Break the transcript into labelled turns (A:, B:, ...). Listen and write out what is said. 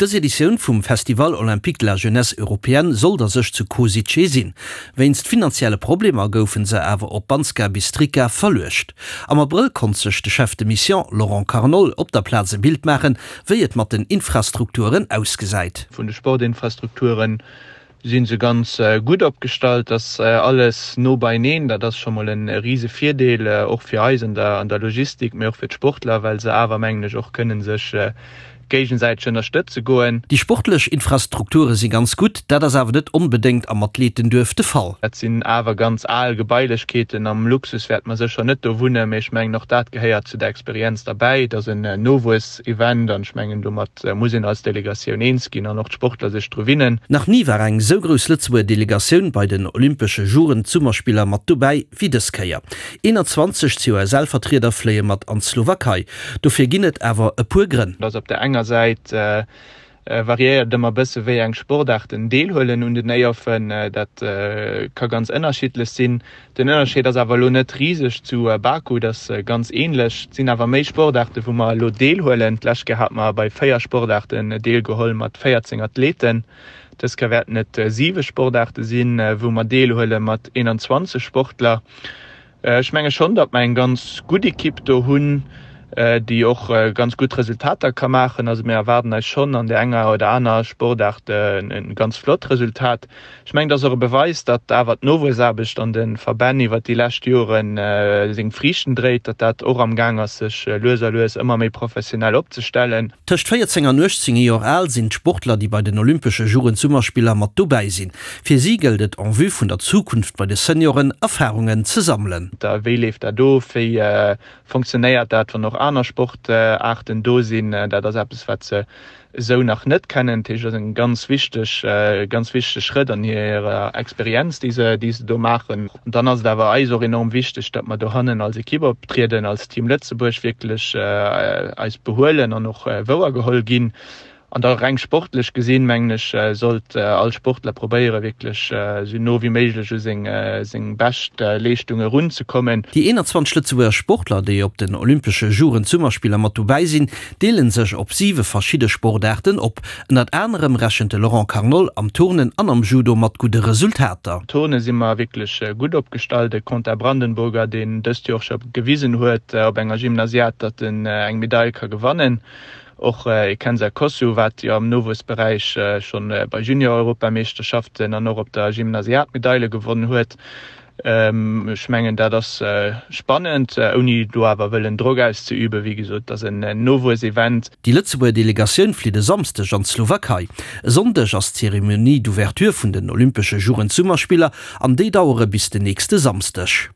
A: Dës Editioun vum Festival Olympique de la Jeunesse Européenne sollt a sech zu Kosice sinn. Wéinst finanzielle Problemer goufen se awer op Banska Bystrica verluecht. Am Abrëll konnt sech de Chef de Mission Laurent Carnol op der Plaz e Bild maachen, wéi et mat den Infrastrukturen ausgesäit.
B: Vun de Sportinfrastrukture si se ganz gutt opgestallt, ass alles no beineen. Dat ass scho mol e rise Virdeel, och fir eis an der Logistik, mee och fir d'Sportler, well se awer, mengen ech, och kënne sech géigesäiteg ënnerstëtze goen.
A: Déi sportlech Infrastrukture si ganz gutt, dat ass awer net onbedéngt am Athletenduerf de Fall.
B: Dat sinn awer ganz al Gebailechkeeten. Am Luxus wäerte mer sécher net do wunnen, mee ech mengen och dat gehéiert zu der Experienz derbäi. Et ass en Nowuess-Event an ech mengen domat muss een als Delegatioun eens ginn an och d'Sportler sech dru winnen.
A: Nach ni war eng esou grouss Lëtzebuerger Delegatioun bei den Olympesche Jugend-Summerspiller mat dobäi wéi dës Kéier. 21 COSL-Vertrieder fléie mat an d'Slowakei. Dofir ginn et awer e puer Grënn.
B: Dass op der enger Säit variéiert et ëmmer bësse wéi eng Sportaarten deelhuelen un den EYOFen. Dat ka ganz ënnerschiddlech sinn. Den Ënnerscheed ass awer elo net riseg zu Baku, et ass ganz änlech. Et sinn awer méi Sportaarte wou mer elo deelhuelen. D'lescht Kéier hate mer bei 4 Sportaarten deelgeholl mat 14 Athleten. Dës Kéier wäerten et 7 Sportaarte sinn, wou mer deelhuele mat 21 Sportler. Ech menge schonn, datt mer eng ganz gutt Ekipp do hunn, déi och ganz gutt Resultater ka maachen. Also mir erwaarden eis schonn an där enger oder aner Sportaart e ganz flott Resultat. Ech mengen, et ass och e Beweis, datt awer d'Nowuessaarbecht an de Verbänn iwwert déi lescht Jore seng Friichten dréit, datt dat och am Gaang ass, sech lues a lues ëmmer méi professionell opzestellen.
A: Tëscht 14 an 18 Joer al sinn d'Sportler, déi bei den Olympesche Jugendsummerspiller mat dobäi sinn. Fir si gëllt et en vue vun der Zukunft bei de Senioren Erfarungen ze sammelen.
B: Wéi leeft dat of? Wéi fonctionnéiert dat, wann och aner Sportaarten do sinn? Dat ass eppes, wat se esou nach net kennen. Dat heescht, et ass e ganz wichteg, ganz wichtege Schrëtt an hirer Experienz, déi se, déi se do maachen. An dann ass et awer eis och enorm wichteg, datt mer dohannen als Ekipp optrieden, als Team Lëtzebuerg wierklech eis behuelen an och wouergeholl ginn. An da reng sportlech gesinn, mengen ech, sollt all Sportler probéieren, wierklech esou no wéi méiglech u seng seng bescht Leeschtung erunzekommen.
A: Déi 21 Lëtzebuerger Sportler, déi op den Olympesche Jugend-Summerspiller mat dobäi sinn, deele sech op siwe verschidde Sportaarten op. Ënnert anerem rechent de Laurent Carnol am Turnen an am Judo mat gudde Resultater.
B: Turne si mer wierklech gutt opgestallt. De Quentin Brandenburger, deen dëst Joer och scho gewisen huet op enger Gymnasiad, datt en eng Medail ka gewannen. Och e Kenza Kosu, wat jo am Nowuessberäich scho bei Junior-Europameeschterschaften an och op der Gymnasiad Medaile gewonnen huet. Ech mengen, dat ass spannend, ouni do awer wëllen Drock auszeüben. Wéi gesot, et ass en Nowuessevent.
A: Déi Lëtzebuerger Delegatioun flitt e Samsdeg an d'Slowakei. E Sonndeg ass d'Zeremonie d'ouverture vun den Olympesche Jugend-Summerspiller an déi dauere bis den nächste Samsdeg.